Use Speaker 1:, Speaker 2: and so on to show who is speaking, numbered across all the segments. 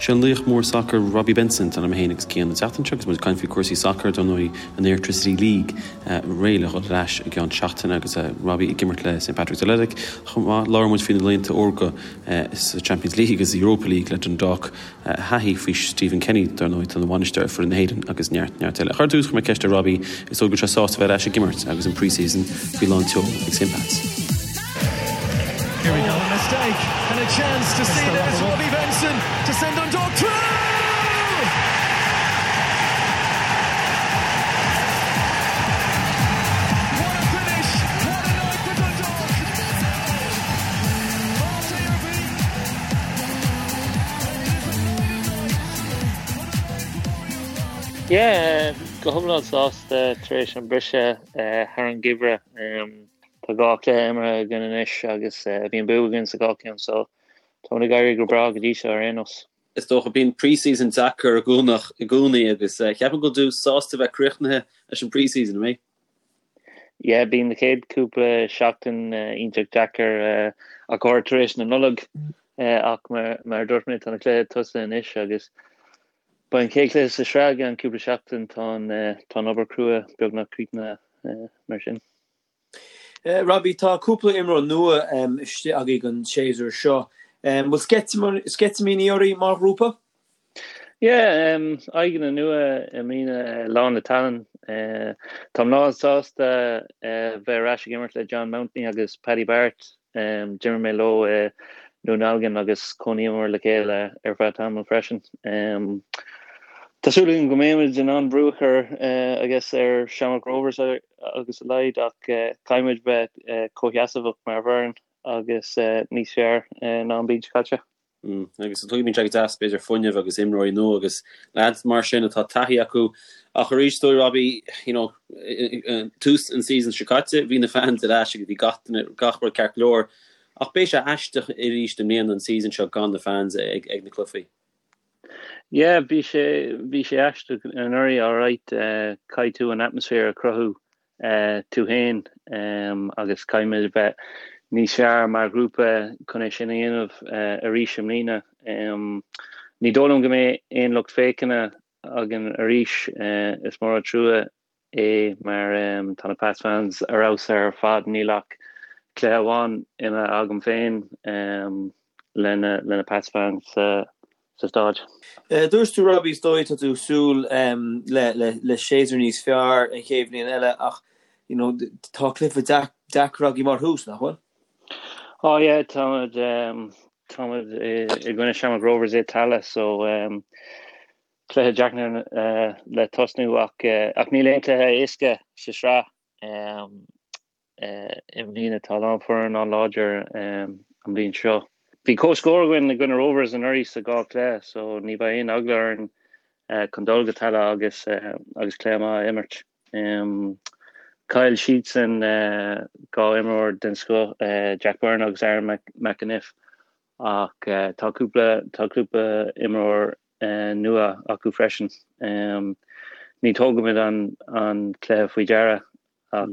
Speaker 1: Sé an laoch mór sacair Robbie Benson atá liom féin agus Cian an tseachtain seo agus muid ag caint faoi chúrsaí sacair, dar ndóigh an Airtricity League réidh le dhul ar ais i gceann seachtaine agus Robbie ag imirt le St Patrick's Athletic. Chomh maith, labhair muid faoi na laethanta órga sa Champions League agus sa Europa League le Dundalk, a thaithí faoi Stephen Kenny, dar ndóigh, atá ina bhainisteoir ar foireann na hÉireann agus neart, neart eile. Ach ar dtús, chuir mé ceist ar Robbie, is dóigh go bhfuil sé sásta bheith ar ais ag imirt agus an pre-season faoi lán tseoil ag St Pat's.
Speaker 2: Here we go, a mistake and a chance to see that it's Robbie Benson to send Dundalk through! What a finish! What a night for Dundalk!
Speaker 3: Yeah, go hiomlán sásta tar éis an briseadh thar an gheimhreadh. Tá dhá chluiche imeartha againn anois agus bhí an bua againn sa dhá cheann so táimid ag éirí go breá go dtí seo ar aon nós.
Speaker 1: Is dócha, bíonn pre-season deacair i gcónaí agus ceapaim go bhfuil tú sásta bheith críochnaithe leis an pre-season, an mbeidh?
Speaker 3: Yeah, bíonn na chéad cúpla seachtain iontach deacair ach go háirithe tar éis na Nollag ach mar a dúirt mé tá na cluichí tosaithe anois agus beidh an chéad chluiche sa sraith i gceann cúpla seachtain, tá an tá an obair crua beagnach críochnaithe mar sin.
Speaker 4: Robbie, tá cúpla imreoir nua istigh agaibh an séasúr seo. Bhfuil sceitimíní oraibh mar ghrúpa?
Speaker 3: Yeah, aghaidheanna nua i mbliana, lán le tallann. Táim lán sásta bheith ar ais ag imirt le John Mountney agus Paddy Barrett. D'imir mé leo i nDún Dealgan agus chónaíomar le chéile ar feadh tamaill freisin. Tá súil agam go mbeimid in ann brú a chur, I guess, ar Shamrock Rovers agus a leithéid ach caithfimid bheith comhsheasmhach mar fhoireann agus níos fearr ná an bhliain seo caite.
Speaker 1: Agus tuigim, bíonn sé go deas, b'fhéidir, fuinneamh agus imreoirí nua agus leaids mar sin atá taithí acu. Ach arís, is dóigh, Robbie, you know, tús an season seo caite, bhí na fans ar ais agus bhí gach duine, gach rud ceart go leor. Ach beidh sé aisteach arís i mbliana an season seo gan na fans ag ag na cluichí.
Speaker 3: Yeah, bhí sé, bhí sé aisteach anuraidh, alright, caithfidh tú an atmaisféar a chruthú tú féin agus caithfimid a bheith níos fearr mar ghrúpa chun é sin a dhéanamh arís i mbliana. Ní dóigh liom go mbeidh aon lucht féachana againn arís. Is mór an trua é mar tá na Pats fans ar fheabhas ar fad. Níl ach cluiche amháin imeartha agam féin le na Pats fans sa sa
Speaker 4: stáid. Dúirt tú Robbie, is dóigh tá tú ag súil le séasúr níos fearr an chéad bhliain eile ach you know tá cluiche deacair agaibh mar thús, nach bhfuil?
Speaker 3: Oh yeah, táimid táimid i gcoinne Shamrock Rovers i Tallaght so cluiche deacair le tosnú ach ach níl aon cluiche éasca sa sraith. I mbliana tá a lán foireann an-láidir an bhliain seo. Bhí comhscór againn i gcoinne Rovers anuraidh sa dhá chluiche so ní bheidh aon eagla orainn chun dul go Tallaght agus agus cluiche maith a imirt. Chaill siadsan dhá imreoir den scoth, Jack Byrne agus Aaron McEneff ach tá cúpla tá cúpla imreoir nua acu freisin. Ní thógaimid an cluiche faoi deara Ach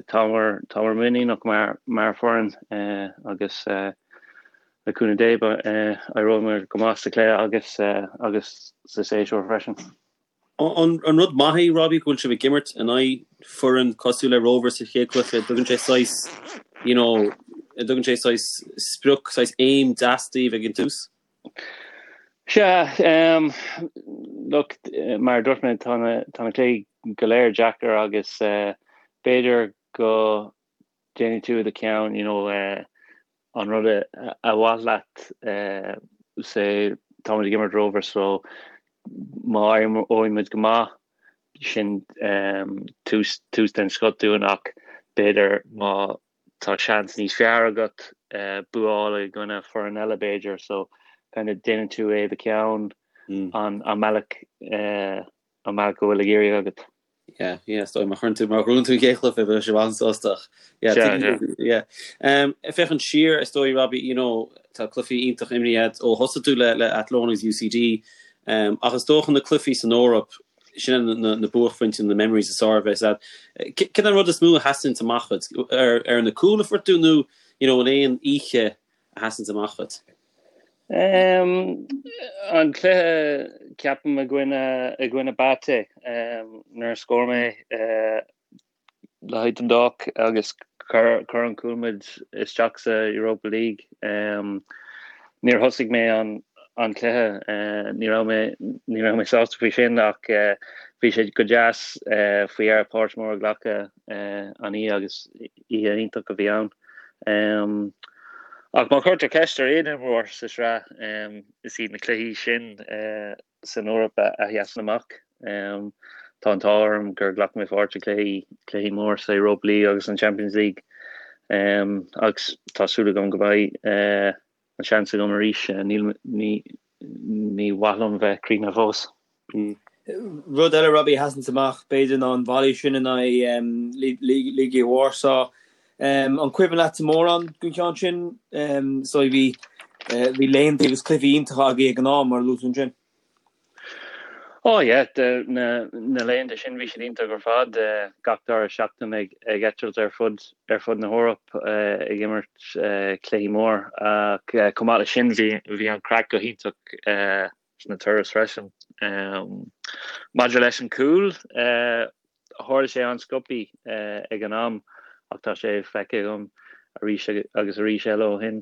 Speaker 3: táimid, táimid muiníneach mar, mar foireann agus le cúnamh Dé éireoidh muid go maith sa chluiche agus, agus sa séasúr freisin.
Speaker 1: An rud maith é, Robbie, go bhfuil sibh ag imirt in aghaidh foireann cosúil le Rovers sa chéad chluiche? Tugann sé saghas, you know, tugann sé saghas sprioc, saghas aim deas daoibh ag an tús?
Speaker 3: Sea, look, mar a dúirt mé, tá na, tá na cluichí go léir deacair agus b'fhéidir go déanfaidh tú i do cheann, you know, an rud a mhaith leat, say, táimid ag imirt Rovers so má éireoidh muid go maith, sin tús, tús den scoth dúinn ach b'fhéidir má tá seans níos fearr agat bua a fháil i gcoinne foireann eile b'fhéidir so kind of déanann tú é i do cheann an an mbealach an mbealach go bhfuil ag iarraidh agat.
Speaker 1: Yeah, yeah, is dóigh má chuireann tú má ghnóthaíonn tú an chéad chluiche beidh sibh an-sásta ach yeah, Sea, tuigim, yeah. Um, ag féachaint siar is dóigh Robbie, you know, tá cluichí iontach imeartha agat ó thosaigh tú le le Athlone agus UCD um, ach is dócha na cluichí san Eoraip Sin na buaicphointí, na memories is fearr a bheas agat. Cén an rud is mó a sheasann amach dhuit? Ar na cúil a fuair tú nó you know, an aon oíche a sheasann amach dhuit?
Speaker 3: An cluiche, ceapaim, i gcoinne, i gcoinne BATE, nuair a scór mé le haghaidh Dundalk agus chuir chuir an cúl muid isteach sa Europa League. Níor thosaigh mé an an cluiche, ní raibh mé ní raibh mé sásta faoi sin ach bhí sé go deas faoi dheireadh páirt mór a ghlacadh an oíche agus oíche iontach a bhí ann. Ach má chuirtear ceist ar aon imreoir sa sraith, is iad na cluichí sin san Eoraip a sheasann amach. Tá an t-ádh orm gur ghlac mé pháirt i gcluichí, cluichí mór sa Europa League agus an Champions League agus tá súil agam go mbeidh an seans agam arís. Níl, ní, ní maith liom bheith críochnaithe fós.
Speaker 4: Rud eile, Robbie, a sheasanns amach, b'fhéidir, ná an volley sin in aghaidh Legia Warsaw. An cuimhin leatsa mórán den cheann sin? So bhí bhí laethanta agus cluichí iontacha agaibh ag an am, mar a luaigh tú ansin.
Speaker 3: Oh yeah, na na laethanta sin bhí siad iontach ar fad. Gach dara seachtain ag ag eitilt ar fud ar fud na hEorpa ag imirt cluichí mór. Ach chomh maith leis sin bhí bhí an craic go hiontach sna turais freisin. Maidir leis an cúl, tharla sé an-sciobthaí ag an am ach tá sé feicthe agam arís agus arís eile ó shin.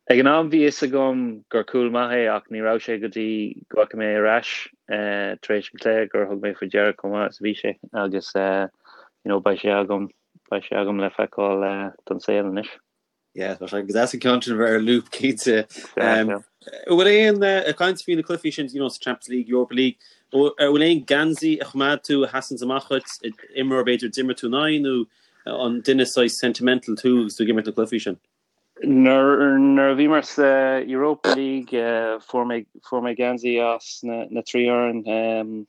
Speaker 3: Ag an am bhí fhios agam gur cúl maith é ach ní raibh sé go dtí go bhfaca mé ar ais tar éis an chluiche gur thug mé faoi deara chomh maith is a bhí sé agus you know beidh sé agam beidh sé agam le feiceáil don saol anois.
Speaker 1: Yeah, tá sé go deas an ceann sin a bheith ar loop cinnte. An bhfuil aon ag caint faoi na cluichí sin you know, sa Champions League, Europa League, an bhfuil aon geansaí a choimeád tú a sheasanns amach dhuit, imreoir b'fhéidir d'imir tú in aghaidh nó an duine saghas sentimental tú agus tú ag imirt na cluichí sin?
Speaker 3: Nuair nuair a bhíomar sa Europa League fuair mé fuair mé geansaí as na na trí fhoireann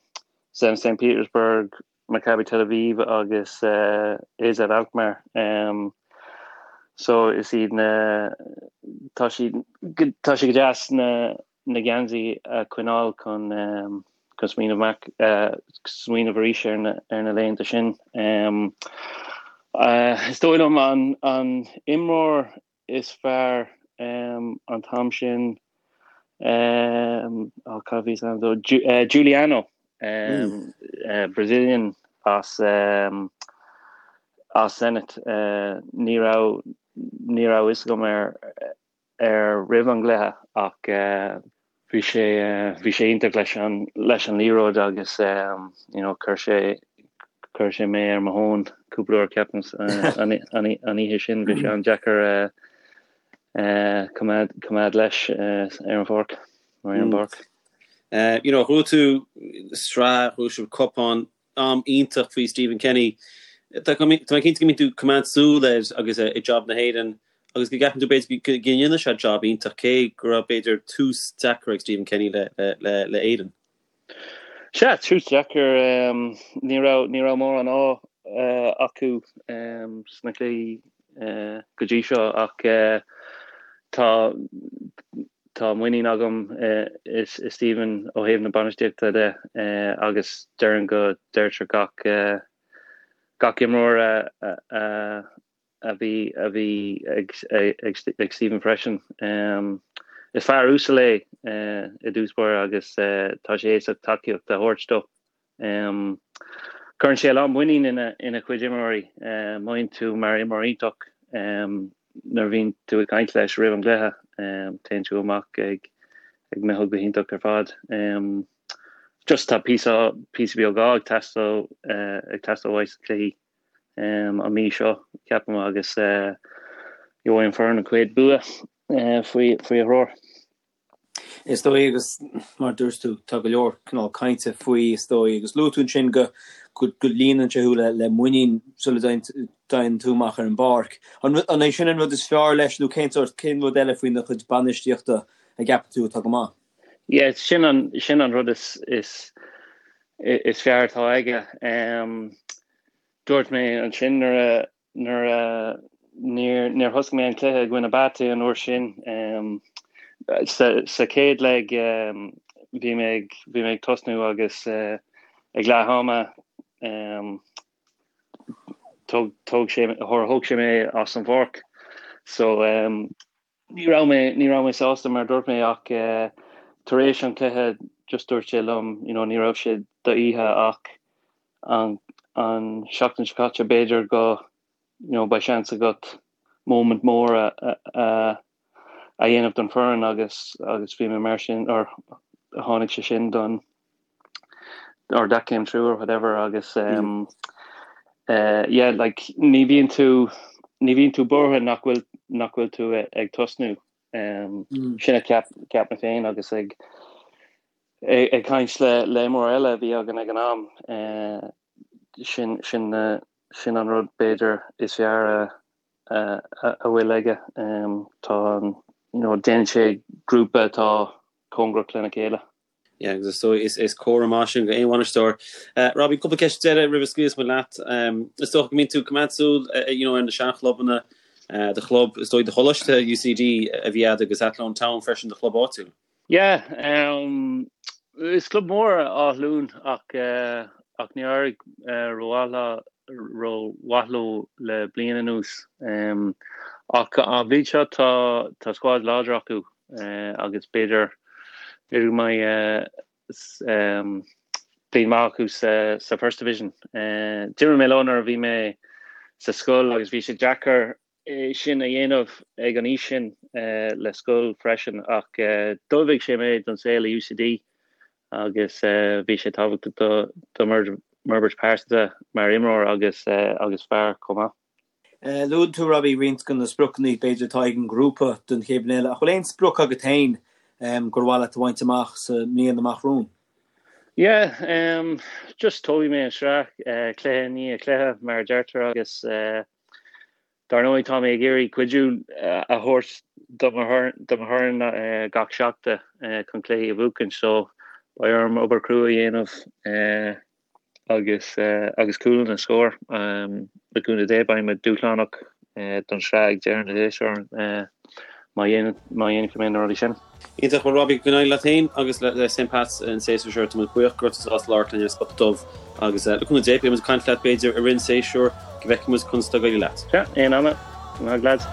Speaker 3: Zenit St Petersburg, Maccabi Tel Aviv agus AZ Alkmaar. So is iad na tá siad tá sé go deas na na geansaí a choinneáil chun chun smaoineamh amach smaoineamh arís ar na ar na laethanta sin. Is dóigh liom an an imreoir is fearr an t-am sin oh cad a bhí is ainm dó Juliano Brazilian as as Zenit ní raibh ní raibh fhios agam air air roimh an gcluiche ach bhí sé bhí sé iontach leis an leis an liathróid agus you know chuir sé chuir sé mé ar mo thóin cúpla uair ceapaim an an an oíche sin bhí sé an-deacair coimeád coimeád leis ar an pháirc ar an bpáirc.
Speaker 1: You know bhuaigh tú sraith bhuaigh sibh cupán am iontach faoi Stephen Kenny. Tá mé cinnte go mbíonn tú ag coimeád súil air agus é ag job na hÉireann agus go gceapann tú b'fhéidir go ndéanfaidh sé job iontach cé go raibh b'fhéidir tús deacair ag Stephen Kenny le le Éirinn.
Speaker 3: Sea, tús deacair. Ní raibh ní raibh mórán ádh acu sna cluichí go dtí seo ach tá Tá muinín agam i Stephen ó thaobh na bainistíochta de agus déarfainn go deirtear gach gach imreoir a bhí a bhí ag ag Stephen freisin. Is fear uasal é i dtús báire agus tá sé éasca tacaíocht a thabhairt dó. Cuireann sé a lán muinín ina chuid imreoirí. Mothaíonn tú mar imreoir iontach nuair a bhíonn tú ag caint leis roimh an gcluiche. Téann tú amach ag ag mothú go hiontach ar fad. Just tá píosa píosa beag ádh ag teastáil ag teastáil uaidh sna cluichí an mí seo, ceapaim, agus gheobhaidh an foireann an chéad bua faoi faoi a threoir.
Speaker 4: Is dóigh, agus mar a dúirt tú, tá go leor cineál cainte faoi, is dóigh, agus luaigh tú ansin go go líonann sé thú le le muinín sula dtéann tú amach ar an bpáirc. An an é sin an rud is fearr leis nó cén sórt, cén rud eile faoina chuid bainistíochta a gceapann tú atá go maith?
Speaker 3: Yeah, sin an sin an rud is is is fearr atá aige. Dúirt mé ansin nuair a Nuair a níor níor thosaigh mé an cluiche i gcoinne BATE an uair sin sa chéad leg bhí mé ag bhí mé ag tosnú agus ag leath ama thóg thóg sé thóg sé mé as an bpáirc so. Ní raibh mé, ní raibh mé sásta mar a dúirt mé ach tar éis an chluiche just dúirt sé liom you know ní raibh sé d'oíche ach an an seachtain seo caite b'fhéidir go you know beidh seans agat moment mór a a a dhéanamh don foireann agus agus bhí mé mar sin or tháinig sé sin don or that came true or whatever agus um, uh, yeah like ní bhíonn tú ní bhíonn tú buartha nach bhfuil nach bhfuil tú ag tosnú um, mm. sin a cheap cheap mé féin agus ag ag, ag caint le le imreoir eile a bhí againn ag an am uh, sin sin uh, sin an rud b'fhéidir is fearr a a, a, a bhfuil aige um, tá an you know, déanann sé grúpa atá cóngarach lena chéile.
Speaker 1: Yeah, agus is dóigh is, is comhartha maith sin go aon bhainisteoir. Uh, Robbie, cúpla ceist deiridh roimh a scaoilfeas muid leat. Um, is dócha go mbíonn tú ag coimeád súil uh, you know, ar na seanchlubanna uh, do chlub, is dóigh do choláiste UCD a bhí agat agus Athlone Town freisin do chlub áitiúil.
Speaker 3: Yeah, um, is club mór Áth Luain ach, uh, ach níor éirigh uh, rómhaith rómhaith leo le bliain anuas. Um, ach an bhliain seo tá, tá squad láidir acu agus b'fhéidir b'fhéidir go mbeidh bliain maith acu sa First Division. D'imir mé leo nuair a bhí mé sa scoil agus bhí sé deacair é sin a dhéanamh ag an aois sin le scoil freisin ach d'ullmhaigh sé mé don saol i UCD agus bhí sé tábhachtach do m'fhorbairt pearsanta mar imreoir agus agus fear chomh maith.
Speaker 4: Luann tú, Robbie, roinnt de na spriocanna b'fhéidir atá ag an ngrúpa don chéad bhliain eile. Ach bhfuil aon sprioc agat féin gur mhaith leat a bhaint amach sa mbliain amach romhainn?
Speaker 3: Yeah, just tógfaidh mé an sraith cluiche i ndiaidh cluiche, mar a deirtear, agus dar ndóigh tá mé ag iarraidh cuidiú a thabhairt do mo fhoireann gach seachtain chun cluichí a bhuachan, so beidh orm obair chrua a dhéanamh. agus agus cúlanna a scór. Le cúnamh Dé beidh muid dúshlánach don sraith ag deireadh na séasúir má dhéanfaidh mé na rudaí sin.
Speaker 1: Iontach, bhuel Robbie, go n-éirí leat féin agus le St Pat's an séasúr seo. Tá muid buíoch go raibh tú sásta labhairt linn ar Spota Dubh agus le cúnamh Dé beidh muid ag caint leat b'fhéidir i rith an séasúir go bhfeicfidh muid conas atá ag éirí leat.
Speaker 3: Sea, aon ama. Go maith lads.